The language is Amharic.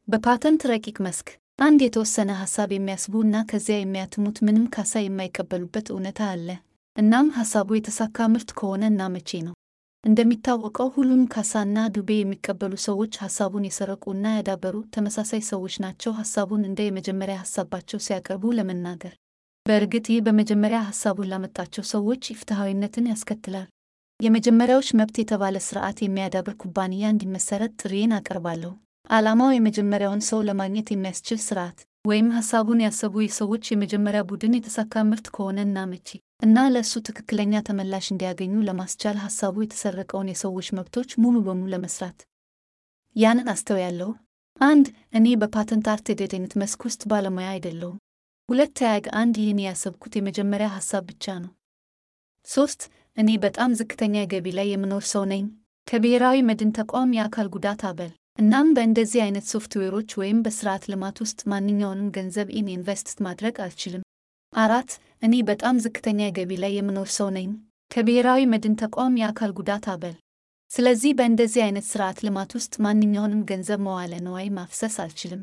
በፓተንት ረቂቅ መስክ አንድ የተወሰነ ሐሳብ የሚያስቡና ከዚያ የሚያትሙት ምንም ካሳ የማይቀበሉበት እውነታ አለ። እናም ሐሳቡ የተሳካ ምርት ከሆነ እና መቼ ነው? እንደሚታወቀው ሁሉም ካሳና ዱቤ የሚቀበሉ ሰዎች ሐሳቡን የሰረቁና ያዳበሩ ተመሳሳይ ሰዎች ናቸው። ሐሳቡን እንደ የመጀመሪያ ሐሳባቸው ሲያቀርቡ ለመናገር በእርግጥ ይህ በመጀመሪያ ሐሳቡን ላመጣቸው ሰዎች ኢፍትሐዊነትን ያስከትላል። የመጀመሪያዎች መብት የተባለ ሥርዓት የሚያዳብር ኩባንያ እንዲመሰረት ጥሪዬን አቀርባለሁ። ዓላማው የመጀመሪያውን ሰው ለማግኘት የሚያስችል ሥርዓት ወይም ሐሳቡን ያሰቡ የሰዎች የመጀመሪያ ቡድን የተሳካ ምርት ከሆነ እና መቼ እና ለእሱ ትክክለኛ ተመላሽ እንዲያገኙ ለማስቻል ሐሳቡ የተሰረቀውን የሰዎች መብቶች ሙሉ በሙሉ ለመስራት ያንን አስተውያለሁ። 1. እኔ በፓተንት አርት መስክ ውስጥ ባለሙያ አይደለሁም። 2. ይህን ያሰብኩት የመጀመሪያ ሐሳብ ብቻ ነው። 3. እኔ በጣም ዝቅተኛ ገቢ ላይ የምኖር ሰው ነኝ፣ ከብሔራዊ መድን ተቋም የአካል ጉዳት አበል። እናም በእንደዚህ አይነት ሶፍትዌሮች ወይም በስርዓት ልማት ውስጥ ማንኛውንም ገንዘብ ኢንቨስት ማድረግ አልችልም። 4. እኔ በጣም ዝቅተኛ ገቢ ላይ የምኖር ሰው ነኝ፣ ከብሔራዊ መድን ተቋም የአካል ጉዳት አበል። ስለዚህ በእንደዚህ አይነት ስርዓት ልማት ውስጥ ማንኛውንም ገንዘብ መዋለ ንዋይ ማፍሰስ አልችልም።